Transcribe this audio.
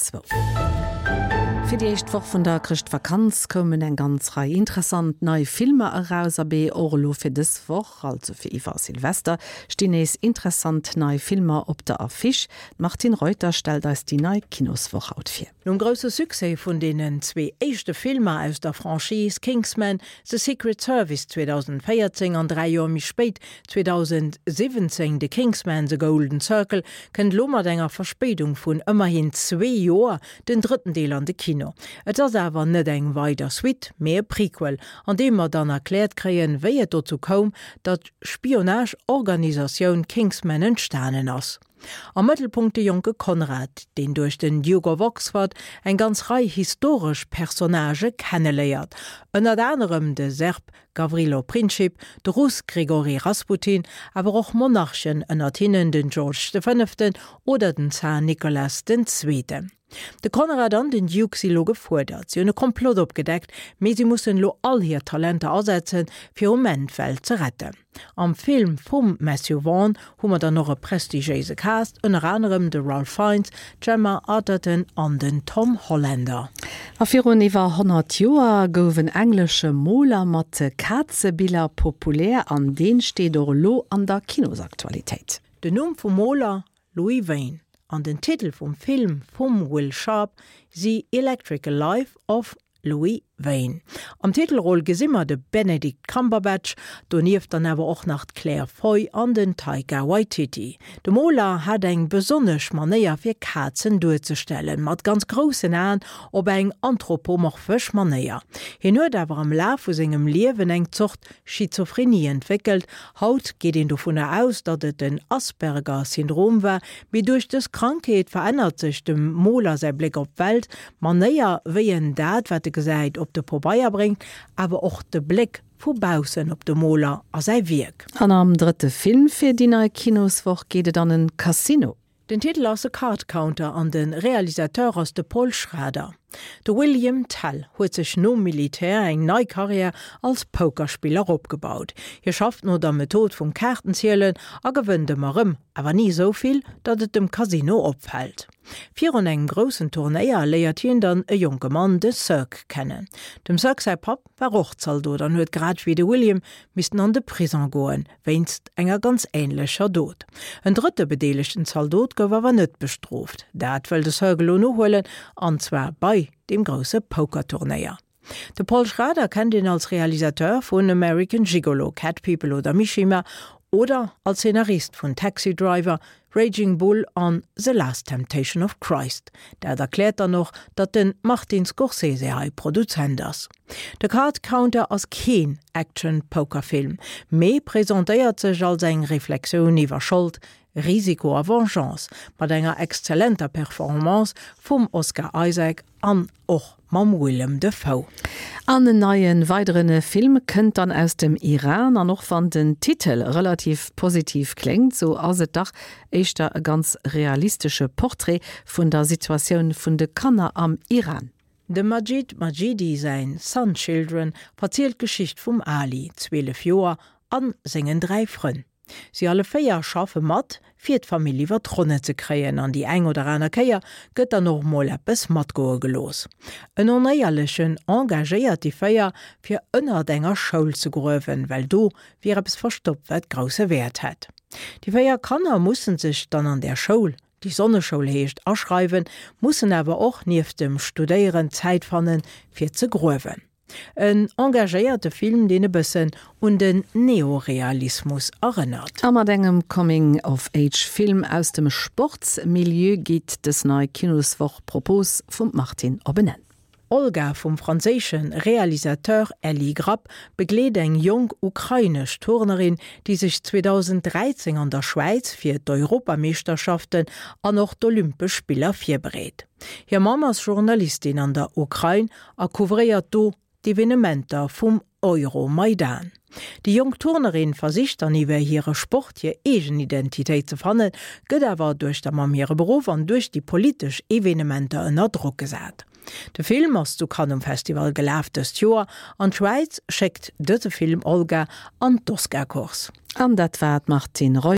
zwou. Fir déi éischt Woch vun der Chrëschtvakanz koumen eng ganz Rei interessant nei Filmer eraus. Abee, och elo fir dës Woch, also fir iwwer Silvester, stinn nees interessant nei Filmer op der Affiche. D'Martine Reuter stellt eis déi nei Kinoswoch haut vir. Nom grousse Succès vun deenen zwee éischte Filmer aus der Franchise Kingsman, The Secret Service 2014 an 3 Joer méi spéit 2017 The Kingsman, The Golden Circle, kënnt elo mat enger Verspéidung vun ëmmerhin zwee Joer den drëtten Deel an de Kino. Et ass awer net eng weider Suite, mee e Prequel, an deem mer dann erkläert kréien, wéi et dozou koum, datt d'Spionage-Organisatioun Kingsman entstanen ass. Am Mëttelpunkt de jonke Conrad, deen duerch den Duke of Oxford eng ganz Rei historesch Personnagë kenneléiert, ënnert anerem de Serb Gavrilo Princip, de Russ Grigori Rasputin, awer och Monarchen, ënnert hinnen den George de Fënneften oder den Zar Nicolas den Zweeten. De Conrad an den Duke si lo gefuerdert. Si hunn e Komplott opgedeckt, mee si mussen elo all hir Talenter asetzen, fir um Enn d'Welt ze retten. Am Film vum Matthew Vaughn hu mer dann och e prestigiéise Cast, ënner anerem de Ralph Fiennes, d'Gemma Arterton an den Tom Hollander. A virun iwwer 100 Joer gouf en englesche Moler mat Kazebiller populär an deen steet och elo an der Kinosaktualitéit. Den Numm vum Moler, Louis Wain, an den Titel vum Film vum Will Sharpe si Electrical Life of Louis Wain. Am Titelroll gesi mer de Benedict Cumberbatch, donieft dann awer och nach d'Claire Foy an den Taika Waititi. De Moler hat eng besonnesch Manéier fir Kazen duerzestellen, mat ganz groussen Aen op eng anthropomorphesch Manéier. Hien huet awer am Laf vu sengem Liewen eng Zort Schizophrenie entwéckelt. Haut geet een dovunner aus, datt et den Asperger-Syndrom war, mee duerch dës Krankheet verännert sech dem Moler säi Bléck op d'Welt, d'Manéier wéi en dat wat e gesäit op de Pobeier bréngt, awer och de Bléck vu baussen op de Moler a säi Wierk. An am drëtte Film fir déi nei Kinoswoch geet et an en Casino. Den Titel ass The Card Counter an de Realisateur ass de Paul Schrader. De William Tell huet sech nom Militär eng nei Karriär als Pokerspiller opgebaut. Hie schafft no der Method vum Kaartenzielen a gewënnt ëmmer rëm, awer ni esou vill, datt et dem Casino opfält. Virun engem groussen Turnéier léiert hien dann e jonke Mann, de Cirque, kennen. Dem Cirque säi Papp war och Zaldot an huet grad wéi de William missten an de Prison goen, wéinst enger ganz änlecher Dot. En drëtte bedeelegten Zaldot gouf awer net bestrooft. Dat wëll de Cirque elo nohuelen, an zwar bei deem grousse Pokerturnéier. De Paul Schrader kennt een als Realisateur vun American Gigolo, Cat People oder Mishima oder als Szenarist vun Taxi Driver, Raging Bull an The Last Temptation of Christ. Dat erkläert dann och, datt de Martin Scorsese hei Produzent ass. The Card Counter ass keen Action-Poker-Film, mee presentéiert sech als eng Reflexioun iwwer Schold, Risiko a Vengeance, mat enger exzellenter Performance vum Oscar Isaac an och mam Willem Dafoe. An en neien weideren Film kënnt dann aus dem Iran, an och wann den Titel relativ positiv kléngt, sou ass et dach éischter e ganz realistesche Portrait vun der Situatioun vun de Kanner am Iran. Dem Majid Majidi säin Sun Children verzielt d'Geschicht vum Ali, 12 Joer, an sengen 3 Frënn. Si alle 4 schaffe mat, fir d'Famill iwwer d'Ronne ze kréien an déi eng oder aner Kéier gëtt dann och mol eppes matgoe gelooss. En Onéierlechen engagéiert déi 4, fir ënnert enger Schoul ze gruewen, well do wier eppes verstoppt, wat grousse Wäert hätt. Déi 4 Kanner mussen sech dann an där Schoul, déi Sonneschoul heescht, aschreiwen, mussen awer och nieft dem Studéieren Zäit fannen, fir ze gruewen. En engagéierte Film, deen e bëssen un den Neorealismus erënnert. A mat engem Coming-of-Age-Film aus dem Sportsmilieu geet dës nei Kinoswoch Propos vum Martine op en Enn. Olga vum franséische Realisateur Elie Grappe begleet eng jonk ukrainesch Turnerin, déi sech 2013 an der Schwäiz fir d'Europameeschterschaften an och d'Olympesch Spiller virbereet. Hir Mamm ass Journalistin an der Ukrain a couvréiert do d'Evenementer vum Euromaidan. Déi jonk Turnerin versicht dann iwwer hire Sport hir eegen Identitéit ze fannen, gëtt awer duerch der Mamm hire Beruff an duerch déi politesch Evenementer ënner Drock gesat. De Film ass zu Cannes um Festival gelaf dëst Joer an d'Schwäiz schéckt dëse Film Olga an d'Oscar-Course. An dat war d'Martine Reuter.